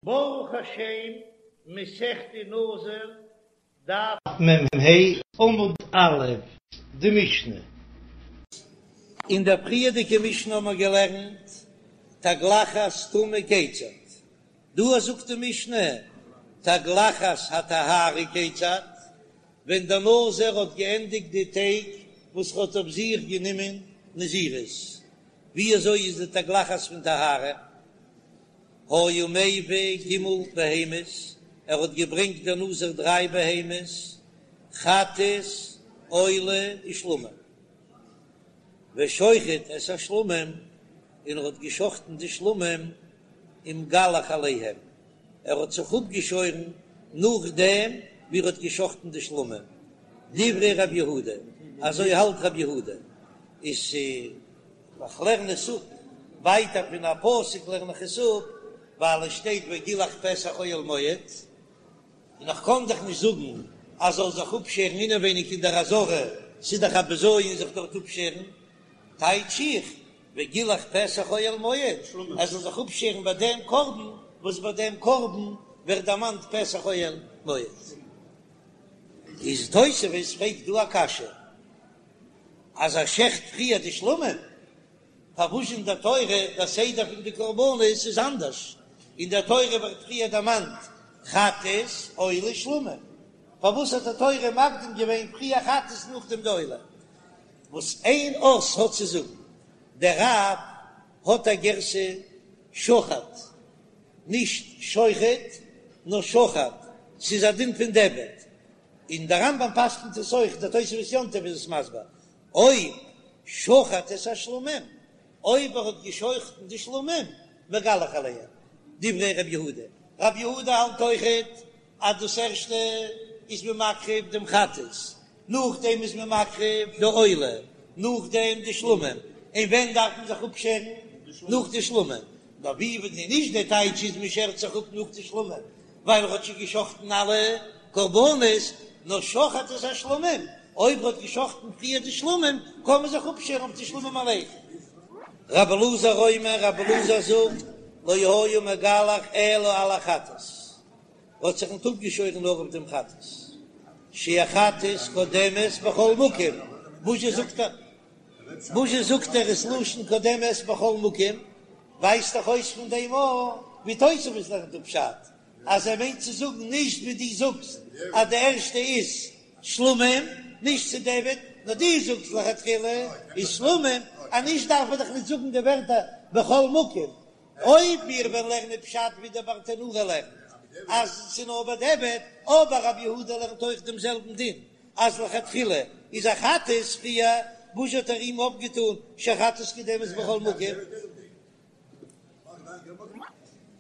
ברוך השם, מסכת נזיר, דף מ"ה, עמוד א', די משנה. אין דער פריערדיגע משנה האבן מיר געלערנט תגלחת טומאה כיצד, דא זאגט די משנה תגלחת הטהרה כיצד, ווען דער נזיר האט געענדיגט די טעג וואס ער האט אויף זיך גענומען נזירות, ווי אזוי איז די תגלחת פון טהרה? היה מביא ג' בהמות, ער האט געברענגט דער נזיר דריי בהמות, חטאת, עולה ושלמים, ושוחט את השלמים, און ער האט געשחטן די שלמים, ומגלח עליהם, ער האט זיך אפגעשוירן נאכדעם ווי ער האט געשחטן די שלמים, דברי רב יהודה, אזוי האלט רב יהודה, איז. איך לערן עס אפ ווייטער פון א פסוק לערן איך עס אפ ווייל עס שטייט וגילח פתח אוהל מועד, און איך קען דאך נישט זאגן אז זאל זיך אפשערן אינעווייניג אין דער עזרה, ס'איז דאך א בזיון זיך דארט אפשערן, טייטש איך וגילח פתח אוהל מועד ער זאל זיך אפשערן ביי דעם קרבן וואס ביי דעם קרבן ווערט דערמאנט פתח אוהל מועד. איז תוספות פרעגט דא א קשיא. אז ער שעכט פריער די שלמים, פארוואס אין דער תורה דער סדר פון די קרבנות איז אנדערש, אין דער תורה ווערט פריער דערמאנט חטאת עולה שלמים, פארוואס האט די תורה מקדים געווען פריער חטאת נאכדעם די עולה? וואס איין אות האט צו זאגן, דער רב האט א גירסא שחט, נישט שוחט נאר שחט, ס'איז א דין פון דיעבד, און דער רמב"ם פסק'נט עס אויך, דער תוספות יום טוב איז עס מסביר, אויב שחט את השלמים, אויב ער האט גע'שחט'ן די שלמים, מגלח עליהם, דברי ר' יהודה, ר' יהודה האלט אויכעט אז דאס ערשטע איז מען מקריב דעם חטאת, נאכדעם איז מען מקריב די עולה, נאכדעם די שלמים, און ווען דארף מען זיך אפשערן? נאך די שלמים, נאר ווי ווען נישט דער טייטש איז מען שערט זיך אפ נאך די שלמים, ווייל ער האט שוין געשחטן אלע קרבנות, נאר שחט את השלמים, אויב ער האט געשחטן פריער די שלמים, קען מען זיך אפשערן אויף די שלמים אליין. רבי אלעזר אומר, רבי אלעזר זאגט, לא היה מגלח אלא על החטאת, ער האט זיך ניט אפגעשוירן נאר אויף דעם חטאת, שהחטאת קודמת בכל מקום, וואס זשע זאגט ער? וואס זשע זאגט ער ס'לשון קודמת בכל מקום? ווייזט דאך אויס פון דעם אויך ווי תוספות לערנט אפ פשט אז ער מיינט צו זאגן נישט ווי דו זאגסט אז די ערשטע איז שלמים נישט צו דיעבד נאר דו זאגסט לכתחילה איז שלמים אז נישט דארף ער דאך נישט זאגן די ווערטער בכל מקום אויב מיר וועלן לערנען פשט ווי דער ברטנורא לערנט אז ס'איז נאר בדיעבד אבער רבי יהודה לערנט אויך דעם זעלבן דין אז לכתחילה איז א חטאת פריער, וואס האט ער אים אויפגעטון שהחטאת קודמת בכל מקום?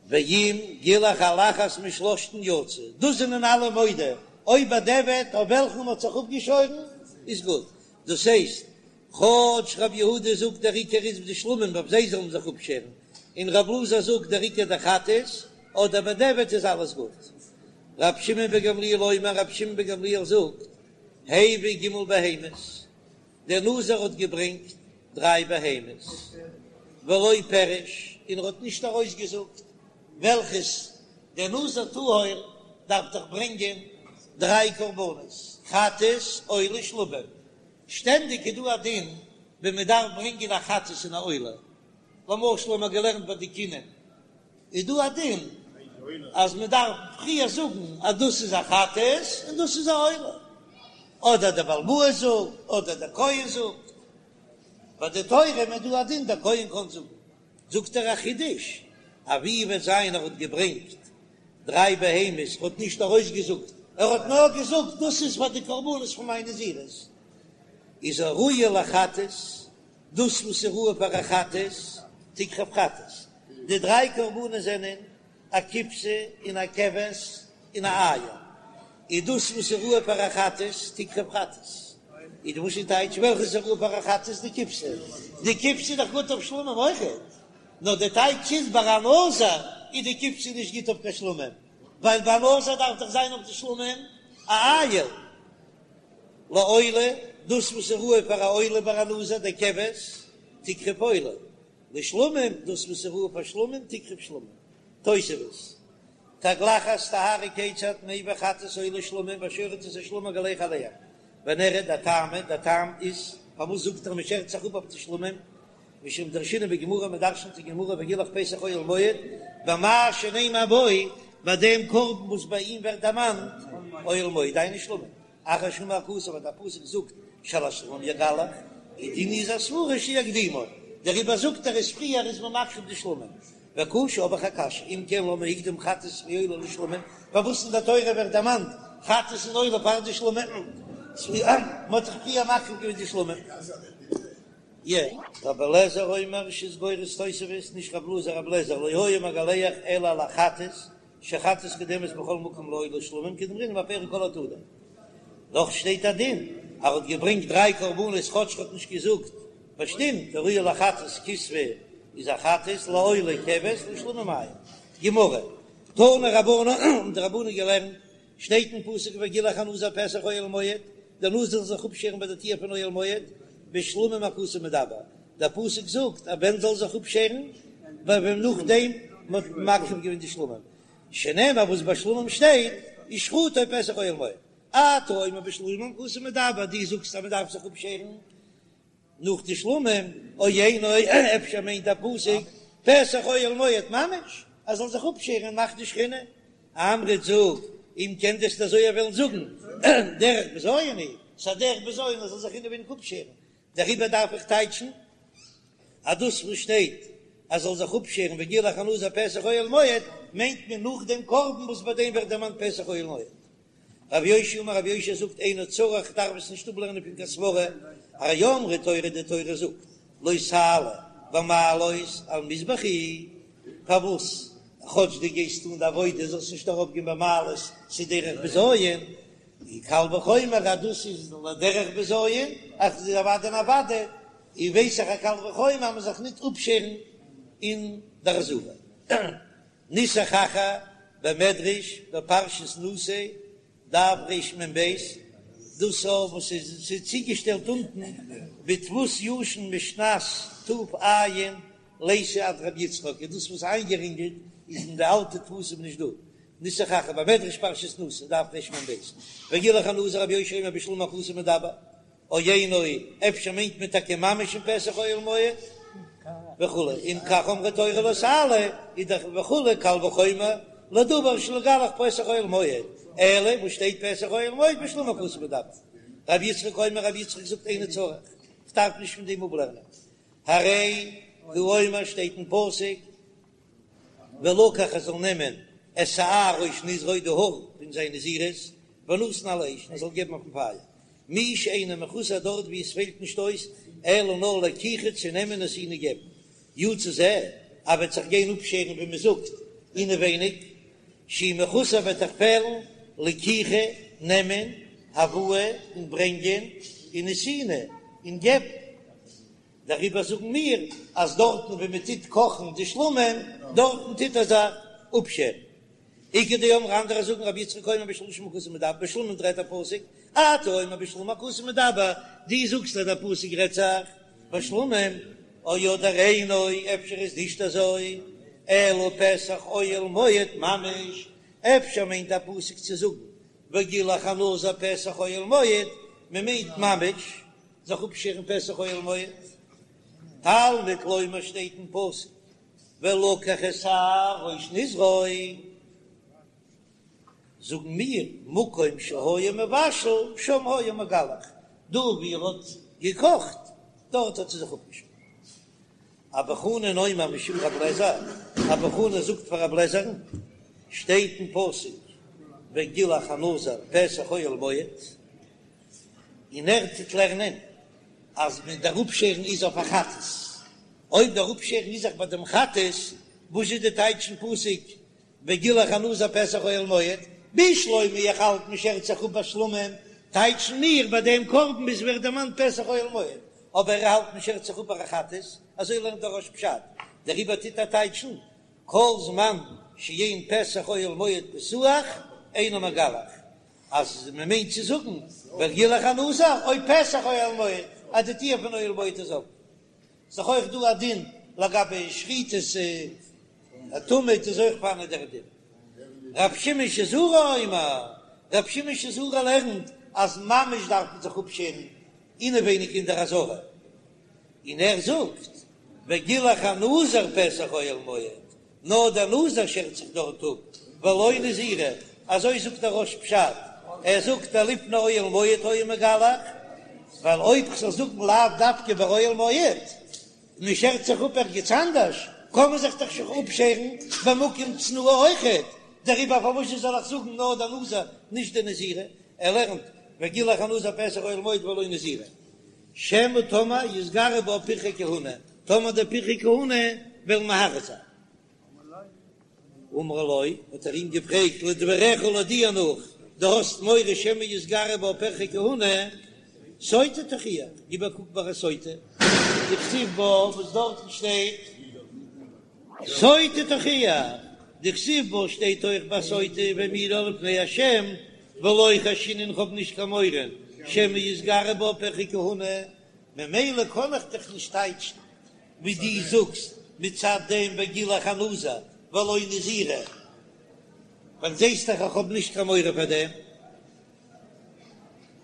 ואם גילח על אחת משלושתן יצא, דאס זענען אלע מודה, אויב בדיעבד אויף וועלכן מ'האט זיך אפגעשוירן איז גוט, דאס הייסט כאטש רב יהודה זאגט דער עיקר איז די שלמים אויף זיי זאל מען זיך אפשערן, און רב אלעזר זאגט דער עיקר די חטאת, אדער בדיעבד איז אלעס גוט. רב שמעון בן גמליאל אומר, רב שמעון בן גמליאל זאגט, הביא ג' בהמות, דער נזיר האט געברענגט דריי בהמות, ולא פירש, און ער האט נישט ארויסגעזאגט וועלכעס, דער נזיר טהור דארף דאך ברענגען דריי קרבנות, חטאת, עולה, שלמים, שטענדיג איז דא א דין ווען מען דארף ברענגען א חטאת און א עולה, למשל האבן מיר געלערנט ביי די קינים, איז דא א דין אז מען דארף פריער זאגן אז דאס איז א חטאת און דאס איז א עולה, אדער דער בעל הבית זאגט אדער דער כהן זאגט, ביי די תורים איז דא א דין דער כהן קען זאגן, זאגט ער א חידוש, אז ווי וועט זיין ער האט געברענגט דריי בהמות, ער האט נישט ארויסגעזאגט, ער האט נאר געזאגט דאס איז פאר די קרבנות פון מיין נזירות, איז הראויה לחטאת, דאס וואס איז ראוי פאר א חטאת, תקרב חטאת, די דריי קרבנות זענען א כבשה און א כבש און א איל, איז דאס וואס איז ראוי פאר א חטאת, תקרב חטאת, איז וואס איז טייטש וועלכע איז ראוי פאר א חטאת, די כבשה, די כבשה איז דאך גוט אויף שלמים אויכעט. נאר די טייטש איז ביי א נזיר איז די כבשה נישט גוט אויף קיין שלמים, ווייל ביי א נזיר דארף דאך זיין אויף די שלמים א איל לעולה, דאס וואס איז ראוי פאר א עולה ביי א נזיר די כבש תקרב עולה, לשלמים דאס וואס איז ראוי פאר שלמים תקרב שלמים. תוספות. תגלחת טהרה כיצד מביא חטאת עולה שלמים ושוחט את השלמים ומגלח עליהם ונראה דטעמא, דער טעם איז פארוואס זאגט ער מ'שערט זיך אפ אויף די שלמים משום דרשינן בגמרא מ'דרשנט אין גמרא וגילח פתח אוהל מועד במה שנאמר בו ביי דעם קרבן וואס ביי אים ווערט דערמאנט אוהל מועד דהיינו שלמים אחר שאמר הכתוב ווען דער פסוק זאגט שעל השלמים יגלח איז דינא איז א סברא שיקדימו דעריבער זאגט ער אז פריער איז מען מקריב די שלמים וקשה האב איך א קשיא אם כן למה הקדים חטאת ועולה לשלמים פארוואס אין דער תורה ווערט דערמאנט חטאת און עולה פאר די שלמים מען האט דאך פריער מקריב געווען די שלמים. י. רבי אליעזר אומר רש"י איז גורס תוספות, נישט רב אלעזר רבי אליעזר לא היה מגלח אלא על החטאת, שחטאת קודמת בכל מקום לעולה ושלמים כדאמרינן בפרק כל התודה. נאך שטייט א דין אז ער האט געברענגט דריי קרבנות כאטש ער האט נישט געזאגט באשטימט הראויה לחטאת כשפה איז א חטאת לעולה כבש לשלמים איל. גמרא, תנו רבנן האבן די רבנן געלערנט שטייט אין פסוק וגילח הנזיר פתח אוהל מועד, דער נזיר זאל זיך אפשערן ביי די טיר פון אוהל מועד, בשלמים הכתוב מדבר, דער פסוק זאגט אז ווען זאל זיך אפשערן, ווען נאכדעם מען האט מקריב געווען די שלמים, שנאמר וואס ביי שלמים שטייט ושחטו פתח אוהל מועד, אתה אומר בשלמים הכתוב מדבר, דו זאגסט אז מען דארף זיך אפשערן נאך די שלמים, או אינו, אפשר מיינט דער פסוק פתח אוהל מועד ממש, ער זאל זיך אפשערן און מאכן די שכינה. אמרת זאג, אם כן וועסט אזוי וועלן זאגן, דרך בזיון היא, ס'איז א דרך בזיון ער זאל זיך אינעווייניג אפשערן, דעריבער דארף איך טייטשן אז דאס וואס שטייט אז זאל זיך אפשערן וגילח הנזיר פתח אוהל מועד מיינט מען נאך דעם קרבן וואס ביי דעם ווערט דערמאנט פתח אוהל מועד. רב יאשיה אמר רב יאשיה זאגט אינו צריך דארף עס נישט אפלערנען פון קיין סברא, הרי אמרה תורה די תורה זאגט לא תעלה במעלות על מזבחי, פארוואס כאטש דו גייסט טון די עבודה זאלסט נישט ארויף גיין במעלות ס'איז דרך בזיון, און קל וחומר אז דאס איז לדרך בזיון אז ס'איז אוודאי און אוודאי, און ווייס איך א קל וחומר אז מ'זאל זיך ניט אפשערן אין דער עזרה. נוסח אחר במדרש בפרשת נשא, דף רמ"ב, דאס וואס איז צוגעשטעלט אונטן בדפוס ישן משנת ת"ע ליתא עד רבי יצחק, איז דאס וואס איינגערינגלט איז אין די אלטע דפוסים נישט דא, נוסח אחר במדרש פרשת נשא, דף רמ"ב, וגילח הנזיר רבי יאשיה אומר בשלמים הכתוב מדבר. או אינו, אפשר מיינט מען טאקע ממש אין פתח אוהל מועד וכו', אם כך אמרה תורה לא תעלה, איז דאך וכו' קל וחומר לדבר שלא יגלח פתח אוהל מועד, אלא וואס שטייט פתח אוהל מועד בשלמים הכתוב מדבר. רבי יצחק אומר רבי יצחק זאגט אינו צריך, כ'דארף נישט פון דעם אפלערנען, הרי הוא אומר שטייט אין פסוק, ולקח ער זאל נעמען את שער ראש נזרו די האר פון זיין נזירות ונתן על האש און ער זאל געבן אויפן פייער מי שאינו מחוסר דארט ווי עס פעלט נישט אויס אלא נאר לקיחה צו נעמען ונתינה געבן יצא זה ער וועט זיך גיין אפשערן ווי מען זאגט אינעווייניג שהוא מחוסר וועט דאך פעלן לקיחה נעמען הבאה און ברענגען און נתינה און געבן. דעריבער זאגן מיר אז דארטן וואו מען טוט קאכן די שלמים, דארטן טוט ער זיך אפשערן. איכא דאמרי אנדערע זאגן רבי יצחק אומר בשלשים הכתוב מדבר, בשלמים רעדט דער פסוק, אתה אומר בשלמים הכתוב מדבר, דו זאגסט אז דער פסוק רעדט זיך בשלמים, או אדער אינו, אפשר איז נישט אזוי, אלא פתח אוהל מועד ממש, אפשר מיינט דער פסוק צו זאגן וגילח הנזיר פתח אוהל מועד, מען מיינט ממש זיך אפשערן פתח אוהל מועד, תלמוד לומר שטייט אין פסוק ולקח את שער ראש נזרו, זאגן מיר מקום שהיה מבשל שם היה מגלח, דא ווי ער האט געקאכט דארט האט ער זיך אפגעשארן. אבא חנן אומר משום רב לעזער, אבא חנן זאגט פאר רב לעזער'ן, שטייט אין פסוק וגילח הנזיר פתח אוהל מועד, און ער טוט לערנען אז מען דער אפשערן איז אויף א חטאת, אויב דער אפשערן איז זיך ביי דעם חטאת, וואס איז די טייטש אין פסוק וגילח הנזיר פתח אוהל מועד, בשלמא איך האלט מען שערט זיך אפ ביי שלמים, טייטשן מיר ביי דעם קרבן וואו ס'ווערט דערמאנט פתח אוהל מועד, אבער ער האלט מען שערט זיך אפ ביי א חטאת, אזוי לערנט דער רא"ש פשט, דעריבער טוט ער טייטשן כל זמן שאין פתח אוהל מועד פתוח אינו מגלח, אז מען מיינט צו זאגן וגילח הנזיר אויב פתח אוהל מועד אז די טיר פון אוהל מועד איז אפן, איז דאך אויך דא א דין לגבי שחיטת התמיד איז אויך פארהאן דער דין. רב שמעון שזורי אומר, רב שמעון שזורי לערנט אז ממש דארף מען זיך אפשערן אינעווייניג אין דער עזרה, און ער זאגט וגילח הנזיר פתח אוהל מועד, נאר דער נזיר שערט זיך דארט אפ, ולא נזירה, אזוי זאגט דער רא"ש פשט, ער זאגט דלפני אוהל מועד היה מגלח, ווייל אויב כ'זאל זאגן לאו דווקא ביי אוהל מועד, מען שערט זיך אפ ערגעץ אנדערש, קען מען זיך דאך שוין אפשערן במקום צנועה אויכעט, דעריבער פארוואס זאל איך זאגן נאר דער נזיר נישט די נזירה, ער לערנט וגילח הנזיר פתח אוהל מועד ולא נזירה, שמא טאמער יתגרו בה פרחי כהונה, טאמער די פרחי כהונה וועלן מהרהר זיין. אמר לו, האט ער אים געפרעגט, לדבריך לויט דיר נאך, דו האסט מורא שמא יתגרו בה פרחי כהונה, סוטה תוכיח, גיב א קוק ביי א סוטה, דכתיב בה, וואס דארטן שטייט, סוטה תוכיח, דכתיב בה שטייט אויך ביי סוטה והעמידה לפני השם, ולא חיישינן כ'האב נישט קיין מורא שמא יתגרו בה פרחי כהונה, ממילא קען איך דיך נישט טייטשן ווי דו זאגסט מצד דעם וגילח הנזיר ולא נזירה, ווייל זעסט דאך איך האב נישט קיין מורא פאר דעם.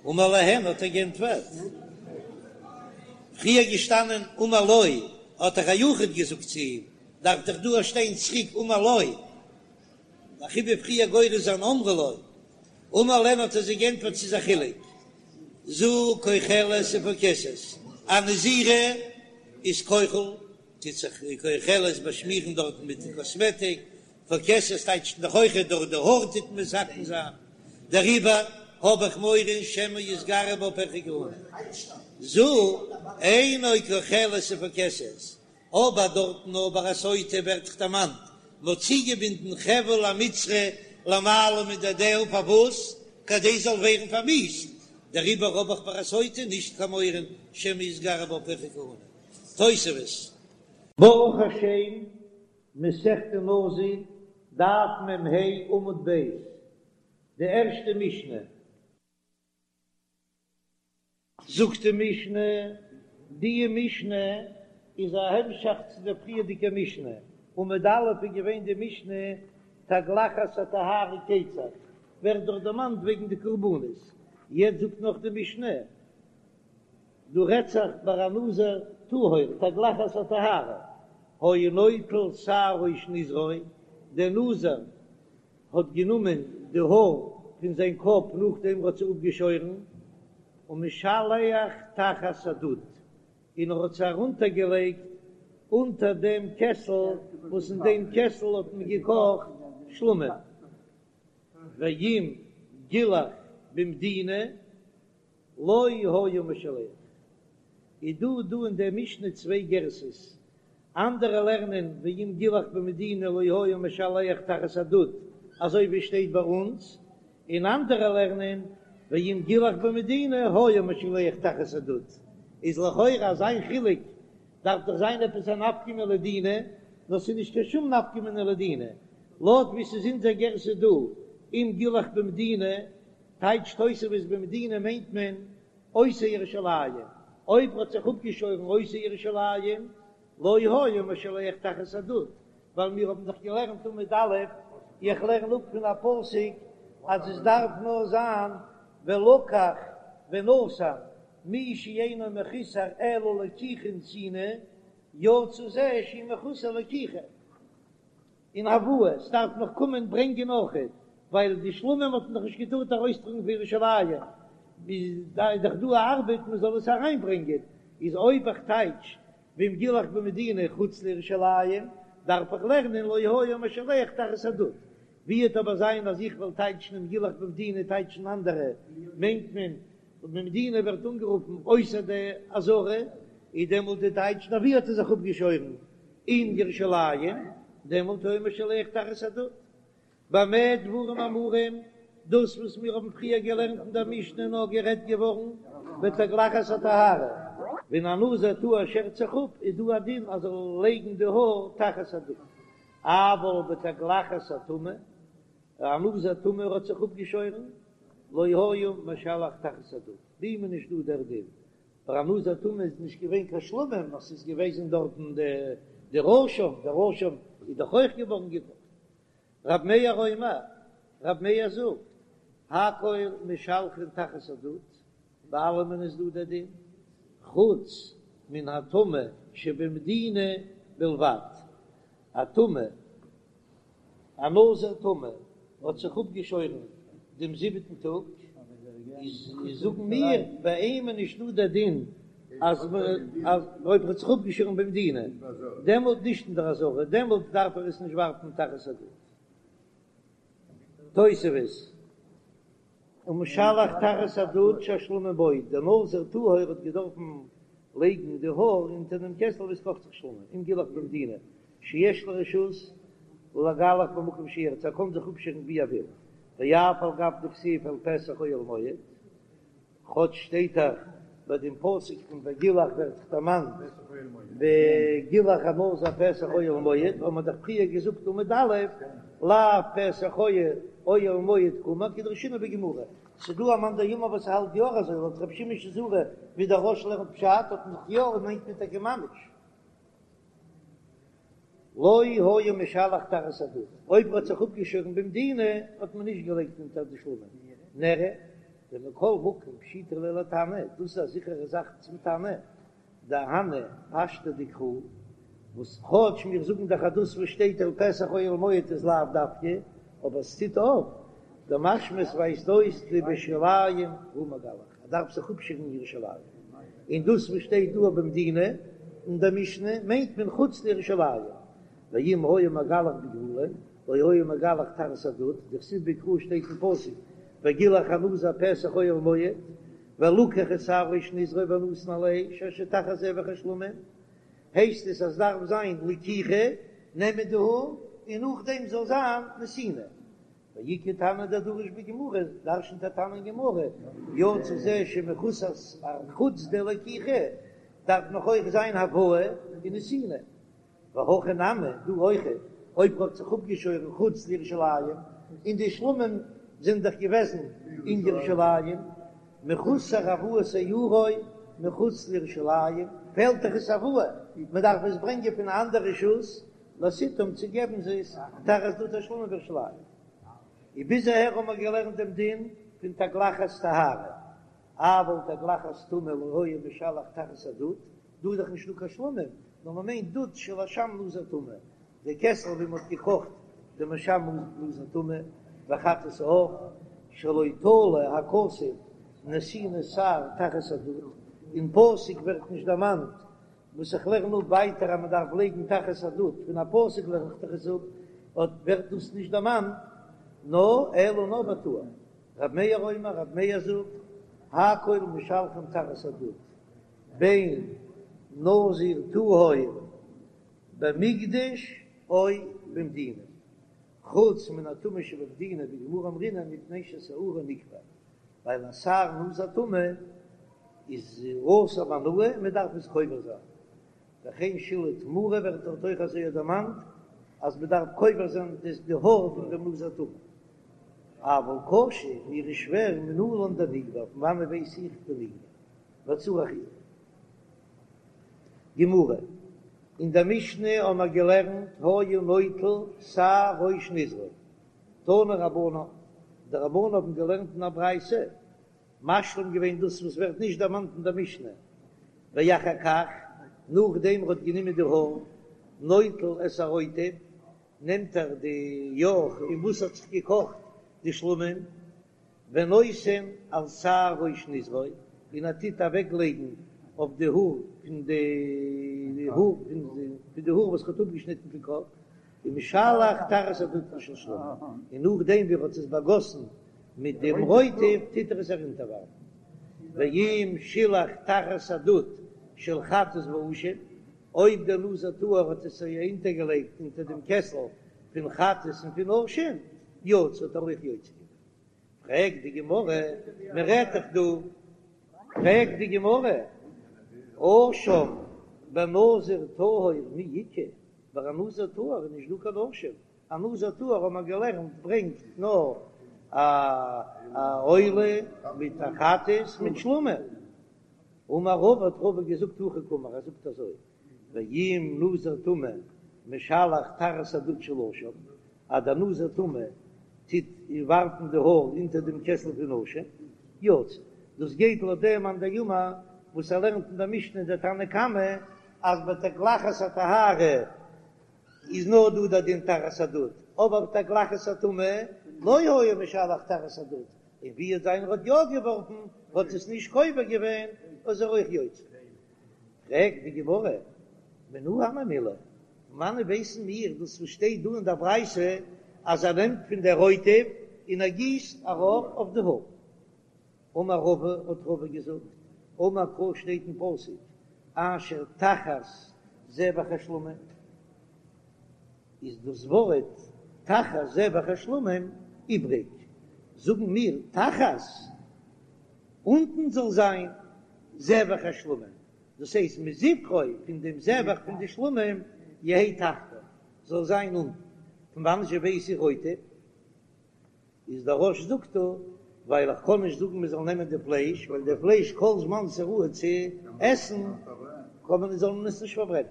אמר להן האט ער גענטפערט, פריער געשטאנען אמר לו האט דאך א יחיד געזאגט צו אים, דארף דאך דא שטיין צוריק אמר לו, אזוי ווי פריער גורס זיין אמרו לו, אמר להן האט ער זיי גענטפערט ס'איז א חילוק, זו כוחלת ופוקסת, א נזירה איז כוחל, טוט זיך כוחלת באשמירן דארטן מיט די קאסמעטיק, פוקסת טייטשט דאך אויכעט דורך די האר טוט מען מתקן זיין, דעריבער האב איך מורא שמא יתגרו בה פרחי כהונה, זו אינה כוחלת ופוקסת, אבער דארטן נאר ביי א סוטה ווערט דאך דערמאנט מ'האט צוגעבינדן חבל המצרי למעלה מדדיה פארוואס? כדי זאל ווערן פארמיאוסט, דעריבער האב איך ביי א סוטה נישט קיין מורא שמא יתגרו בה פרחי כהונה. תוספות. ברוך השם, מסכת נזיר, דף מ"ה עמוד ב', די ערשטע משנה. זאגט די משנה, די משנה איז א המשך צו דער פריערדיגע משנה, עמוד א' איז געווען די משנה תגלחת הטהרה כיצד, ווערט דאך דערמאנט וועגן די קרבנות, יעצט זאגט נאך די משנה, דא רעדט זיך ביי א נזיר טהור, תגלחת הטהרה, היה נוטל שער ראש נזרו, דער נזיר האט גענומען די האר פון זיין קאפ נאכדעם ער האט זיי אפגעשוירן, ומשלח תחת הדוד, און ער האט זיי ארונטערגעלייגט אונטער דעם קעסל וואס אין דעם קעסל האט מען געקאכט שלמים, ואם גילח במדינה לא היה משלח. איז דא דא אין דער משנה צוויי גרסאות, אנדערע לערנען ואם גילח במדינה לא היה משלח תחת הדוד אזוי ווי שטייט ביי אונז, און אנדערע לערנען ואם גילח במדינה היה משלח תחת הדוד, איז לכאורה אזא חילוק דארף דאך זיין עפעס א נפקא מינה לדינא, נאר ס'איז נישט קיין שום נפקא מינה לדינא, לויט ווי ס'איז אונזער גרסה דא אם גילח במדינה טייטשט תוספות במדינה מיינט מען אויסער ירושלים, אויב האט זיך אפגעשוירן אויסער ירושלים, לא היה משלח תחת הדוד, ווייל מיר האבן דאך געלערנט עמוד א', איך לערן אפ פון א פסוק אז עס דארף נאר זיין ולקח ונתן, מי שאינו מחוסר אלא לקיחה ונתינה, יצא זה שהוא מחוסר לקיחה. און הבאה, ס'דארף נאך קומען ברענגען אויכעט, ווייל די שלמים האט מען דאך נישט געטארט ארויסטראגן פון ירושלים, איז דאך דא א ארבעט מען זאל עס אריינברענגען, איז אויב איך טייטש ואם גילח במדינה חוץ לירושלים, דארף איך לערנען לא היה משלח תחת הדוד, ווי וועט אבער זיין אז איך וועל טייטשן אם גילח במדינה טייטשן אנדערע, מיינט מען במדינה ווערט אנגערופן אויסער די עזרה, איז דעמאלט די טייטש נאר ווי האט ער זיך אפגעשוירן אין ירושלים, דעמאלט היה משלח תחת הדוד. במה דברים אמורים, דאס וואס מיר האבן פריער געלערנט אין דער משנה נאר גערעדט געווארן בתגלחת הטהרה, ווען א נזיר טהור שערט זיך אפ איז דא א דין אז ער זאל לייגן די האר תחת הדוד, אבל בתגלחת הטומאה, א נזיר טמא האט זיך אפגעשוירן, לא היה משלח תחת הדוד, ביי אים איז נישט דא דער דין, ביי א נזיר טמא איז נישט געווען קיין שלמים, נאר ס'איז געוועזן דארטן דער אשם, דער אשם איז דאך אויך געווארן געקאכט. רב מאיר אומר. רב מאיר זאגט, הכל משלחין תחת הדוד, ביי אלעמען איז דא דער דין, חוץ מן הטמא שבמדינה בלבד, א טמא, א נזיר טמא האט זיך אפגעשוירן דעם זיבעטן טאג, איז זאגן מיר ביי אים איז נישט דא דער דין אז אויב ער האט זיך אפגעשוירן במדינה, דעמאלט נישט אין דער עזרה, דעמאלט דארף ער עס נישט ווארפן תחת הדוד. תוספות. ומשלח תחת הדוד שהשלמים בו, דער נזיר טהור האט געדארפן לייגן די האר אונטער דעם קעסל וואו עס קאכט זיך שלמים, אם גילח במדינה שיש לו רשות לגלח במקום שירצה, ער קען זיך אפשערן ווי ער וויל, ואף על גב דכתיב אל פתח אוהל מועד. כאטש שטייט דאך ביי דעם פסוק פון וגילח ווערט דאך דערמאנט וגילח הנזיר פתח אוהל מועד, האט מען דאך פריער געזאגט עמוד א', לאו פתח אוהל מועד קאמר כדרשינן בגמרא, ס'דא א מאן דאמר וואס האלט יא אזוי לויט רבי שמעון שזורי ווי דער רא"ש לערנט פשט האט מען דאך יא און מיינט מען טאקע ממש. לא היה משלח תחת הדוד, אויב ער האט זיך אפגעשוירן במדינה האט מען נישט געלייגט אונטער די שלמים, נראה דמכל מקום פשיטא ליה לתנא, דאס איז א זיכערע זאך צום תנא, דהני פשטי דקרא, וואס כאטש מיר זאגן דאך אז דאס וואס שטייט אל פתח אוהל מועד איז לאו דווקא, אבער עס טוט אויף, דמשמע עס ווייזט אויס דבירושלים הוא מגלח, ער דארף זיך אפשערן אין ירושלים, און דאס וואס שטייט דא במדינה אין דער משנה מיינט מען חוץ לירושלים, ואם היה מגלח בגבולין לא היה מגלח תחת הדוד, דכתיב בקרא שטייט אין פסוק וגילח הנזיר פתח אוהל מועד, ולקח את שער ראש נזרו ונתן על האש אשר תחת זבח השלמים, הייסט עס אז דארף זיין לקיחה, נעמען די האר, און נאכדעם זאל זיין נתינה. ואיכא תנא דדריש בגמרא, דרשנ'ט א תנא אין גמרא, יצא זה שמחוסר חוץ די לקיחה, דארף נאך אויך זיין הבאה און נתינה. והכא נמי, דא אויך, אויב ר'האט זיך אפגעשוירן חוץ לירושלים, און די שלמים זענען דאך געוועזן אין ירושלים, מחוסר הבאת שערו מחוץ לירושלים, פעלט דאך עס הבאה, מ'דארף עס ברענגען פון א אנדער רשות, לסיתם צו געבן זיי עס תחת דוד השלמים בירושלים. און ביז אהער האבן מיר געלערנט דעם דין פון תגלחת טהרה, אבל תגלחת טומאה לא היה משלח תחת הדוד, דא איז דאך נישטא קיין שלמים, נאר מען מיינט דוד של אשם נזיר טמא, די קעסל ווי מען האט געקאכט דעם אשם נזיר טמא, וחטאת העוף, שלא תלה הכתוב נתינת שער תחת הדוד, אין פסוק ווערט נישט דערמאנט וואס איך לערן אפ ווייטער אז מען דארף לייגן תחת הדוד, פון א פסוק לערן איך דאך עס אפ, אט ווערט דאס נישט דערמאנט, נאר אלא נאר בטהור. רב מאיר אומר, רב מאיר זאגט, הכל משלחין תחת הדוד, בין נזיר טהור במקדש או במדינה, חוץ מן הטמא שבמדינה בגמרא אמרינן מפני ששערו נקבר, ווייל א שער נזיר טמא איז אסור בהנאה, מען דארף עס קובר זיין, וכן שלהי תמורה ווערט דארט אויך אזוי דערמאנט אז מען דארף קובר זיין די האר פון דעם נזיר טמא. אבל קשה, מיר איז שווער מנלן דנקבר, פון וואנעט ווייס איך דנקבר? וצריך עיון. גמרא, אין דער משנה האבן מיר געלערנט היה נוטל שער ראש נזרו, תנו רבנן, די רבנן האבן געלערנט אין א ברייתא, משלים געווען דאס וואס ווערט נישט דערמאנט אין דער משנה, ואחר כך, נאכדעם ער האט גענומען די האר, נוטל את הרוטב, נעמט ער די יוך אין וואס האט זיך געקאכט די שלמים, ונותן על שער ראש נזרו, און ער טוט אוועק לייגן אויף די האר פון די האר פון די האר וואס ער האט אפגעשניטן פון קאפ, ומשלח תחת הדוד של שלמים, און נאכדעם ווי ער האט עס באגאסן מיט דעם רוטב טוט ער עס ארונטערווארפן, ואם שילח תחת הדוד של חטאת ואשם, אויב דער נזיר טהור האט עס אונטערגעלייגט אונטער דעם קעסל פון חטאת און פון אשם, יצא האט ער אויך יוצא געווען. פרעגט די גמרא, מען רעדט דאך דא, פרעגט די גמרא, אשם בנזיר טהור מי איכא, ביי א נזיר טהור איז נישט דא קיין אשם, א נזיר טהור האט מען געלערנט ברענגט נאר א עולה מיט א חטאת מיט שלמים, אמר רבא האט רבא געזאגט הכי קאמר, ער זאגט אזוי, ואם נזיר טמא משלח תחת הדוד של אשם, אז דער נזיר טמא. טוט ווארפן די האר אונטער דעם קעסל פון אשם, יצא. דאס גייט לויט דעם מאן דאמר וואס ער לערנט אין דער משנה דער תנא קמא אז בתגלחת הטהרה איז נאר דא דער דין תחת הדוד, אבער בתגלחת הטומאה לא היה משלח תחת הדוד, און ווי האט זיין ער האט יא געווארפן האט עס נישט קובר געווען איז ער אויך יוצא. פרעגט די גמרא, מנא הני מילי, פון וואנען ווייסן מיר דאס וואס שטייט דא אין דער ברייתא אז ער נעמט פון דער רוטב און ער גיסט ארויף אויף די האר? אמר רבא, האט רבא געזאגט, אמר קרא שטייט אין פסוק אשר תחת זבח השלמים, איז דאס ווארט תחת זבח השלמים איבריג, זאגן מיר תחת אונטן זאל זיין זבח השלמים, דאס הייסט מזבחו פון דעם זבח פון די שלמים יהא תחתיו זאל זיין אונטן, פון וואנען זשע ווייס איך רוטב? איז דער רא"ש זאגט דא, ווייל איך קען נישט זאגן מען זאל נעמען די פלייש, ווייל די פלייש כל זמן ס'איז ראוי צו עסן קען מען זאל מען עס נישט פארברענען.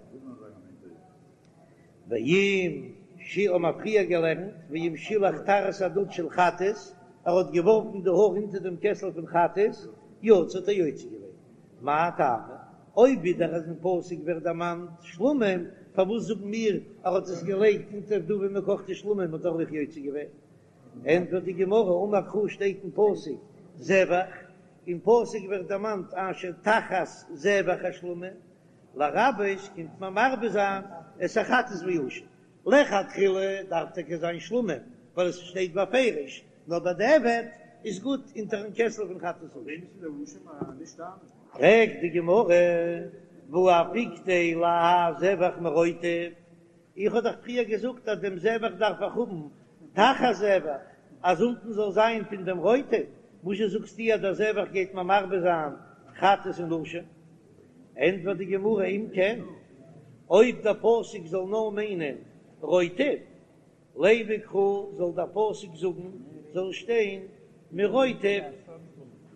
ואם ש האבן מיר פריער געלערנט, ואם שילח תחת הדוד של חטאת, ער האט געווארפן די האר אונטער דעם קעסל פון חטאת, יצא האט ער יוצא געווען. מאי טעמא? אויב ווידער אז אין פסוק ווערט דערמאנט שלמים, פארוואס זאגן מיר ער האט עס געלייגט אונטער דא ווי מען קאכט די שלמים האט ער אויך יוצא געווען? ענטפערט די גמרא, אמר קרא שטייט אין פסוק זבח, אין פסוק ווערט דערמאנט אשר תחת זבח השלמים, לרבות קומט מען מרבה זיין את החטאת והאשם, לכתחילה דארף טאקע זיין שלמים ווייל עס שטייט בפירוש, נאר בדיעבד איז גוט אונטערן קעסל פון חטאת ואשם. פרעגט די גמרא, והא אפיקתיה להאי זבח מרוטב, איך האב דאך פריער געזאגט אז דעם זבח דארף איך האבן תחת זבח, אז אונטן זאל זיין פון דעם רוטב, וואזשע זאגסטו אז דער זבח גייט מיר מרבה זיין חטאת און אשם? ענטפערט די גמרא, אם כן, אויב דער פסוק זאל נאר מיינען רוטב, לימא קרא זאל דער פסוק זאגן זאל שטיין מרוטב,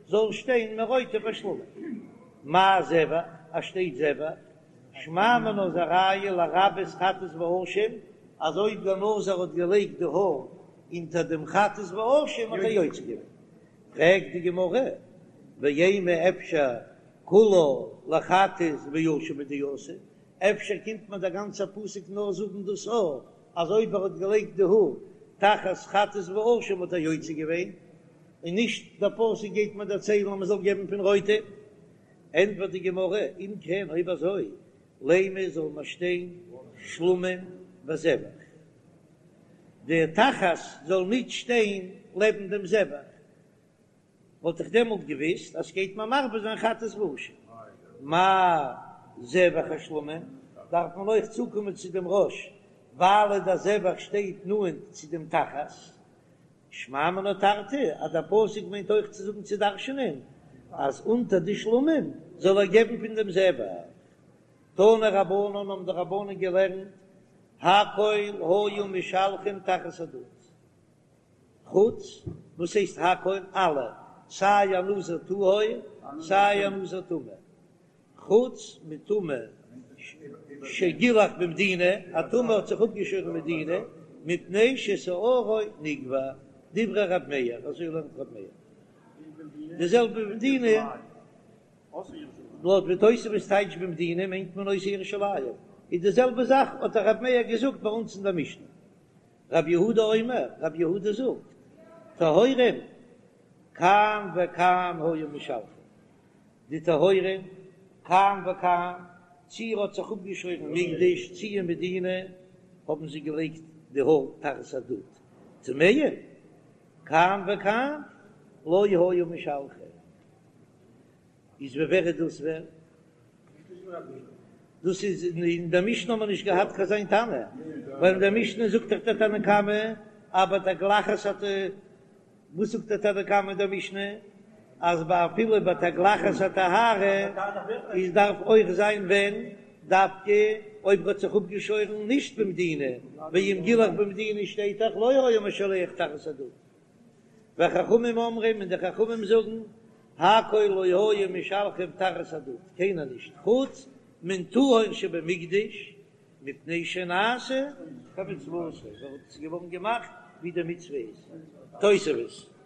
זאל שטיין מרוטב השלמים, מאי זבח, אז שטייט זבח, שמע מינה איז א ראיה לרבות חטאת ואשם, אז אויב דער נזיר האט געלייגט די האר אונטער דעם חטאת ואשם האט ער יוצא געווען. פרעגט די גמרא, ואימא אפשר כולה לחטאת ואשם הוא דאתא, אפשר קומט מיר דער גאנצער פסוק נאר זאגן דאס האר אז אויב ער האט געלייגט די האר תחת חטאת ואשם האט ער יוצא געווען, און נישט דער פסוק גייט מיר דערציילן אז מען זאל געבן פון רוטב. ענטפערט די גמרא, אם כן אויב אזוי לימא זאל מען שטיין שלמים וזבח, די תחת זאל ניט שטיין לעבן דעם זבח, וואלט איך דעמאלט געוויסט אז ס'גייט מיר מרבה זיין חטאת ואשם. מאי זבח השלמים, דארף מען אויך צוקומען צו דעם רא"ש, ווייל דער זבח שטייט נאנט צו דעם תחת. שמע מינה תרתי, אז דער פסוק מיינט אויך צו זאגן צו דרש'נען אז אונטער די שלמים זאל ער געבן פון דעם זבח. תנו רבנן האבן די רבנן געלערנט, הכל היו משלחין תחת הדוד. חוץ, וואס הייסט הכל? אלע, סיי א נזיר טהור סיי א נזיר טמא, חוץ מטמא שגילח במדינה, א טמא האט זיך אפגעשוירן מדינה, מפני ששערו נגבה, דברי ר' מאיר, אזוי לערנט ר' מאיר, די זעלבע במדינה, לויט ווי תוספות טייטשט במדינה מיינט מען אויסער ירושלים, איז די זעלבע זאך האט ר' מאיר געזאגט ביי אונז אין דער משנה. רבי יהודה אומר, רבי יהודה זאגט, טהורים כאן וכאן היו משלחין, די טהורים כאן וכאן, צי ער האט זיך אפגעשוירן מקדש צי אין מדינה, האבן זיי געלייגט די האר תחת הדוד, טמאים כאן וכאן לא היו משלחין. איז ווי ווער איז דאס ווער? דאס איז אין דער משנה האט מען נישט געהאט קיין אזא תנא, ווייל אין דער משנה זאגט דאך דער תנא קמא אז בתגלחת האט וואס זאגט דער תנא קמא אין דער משנה אז ביי אפילו בתגלחת הטהרה איז דארף אויך זיין ווען דווקא אויב ער האט זיך אפגעשוירן נישט במדינה, ואם גילח במדינה שטייט דאך לא היה משלח תחת הדוד. וחכמים אומרים און די חכמים זאגן, הכל לא היו משלחין תחת הדוד, קיינער נישט, חוץ מן טהור שבמקדש, מפני שנעשה כמצוותו, ווייל עס איז געווארן געמאכט. ווי די מצוה איז. תוספות.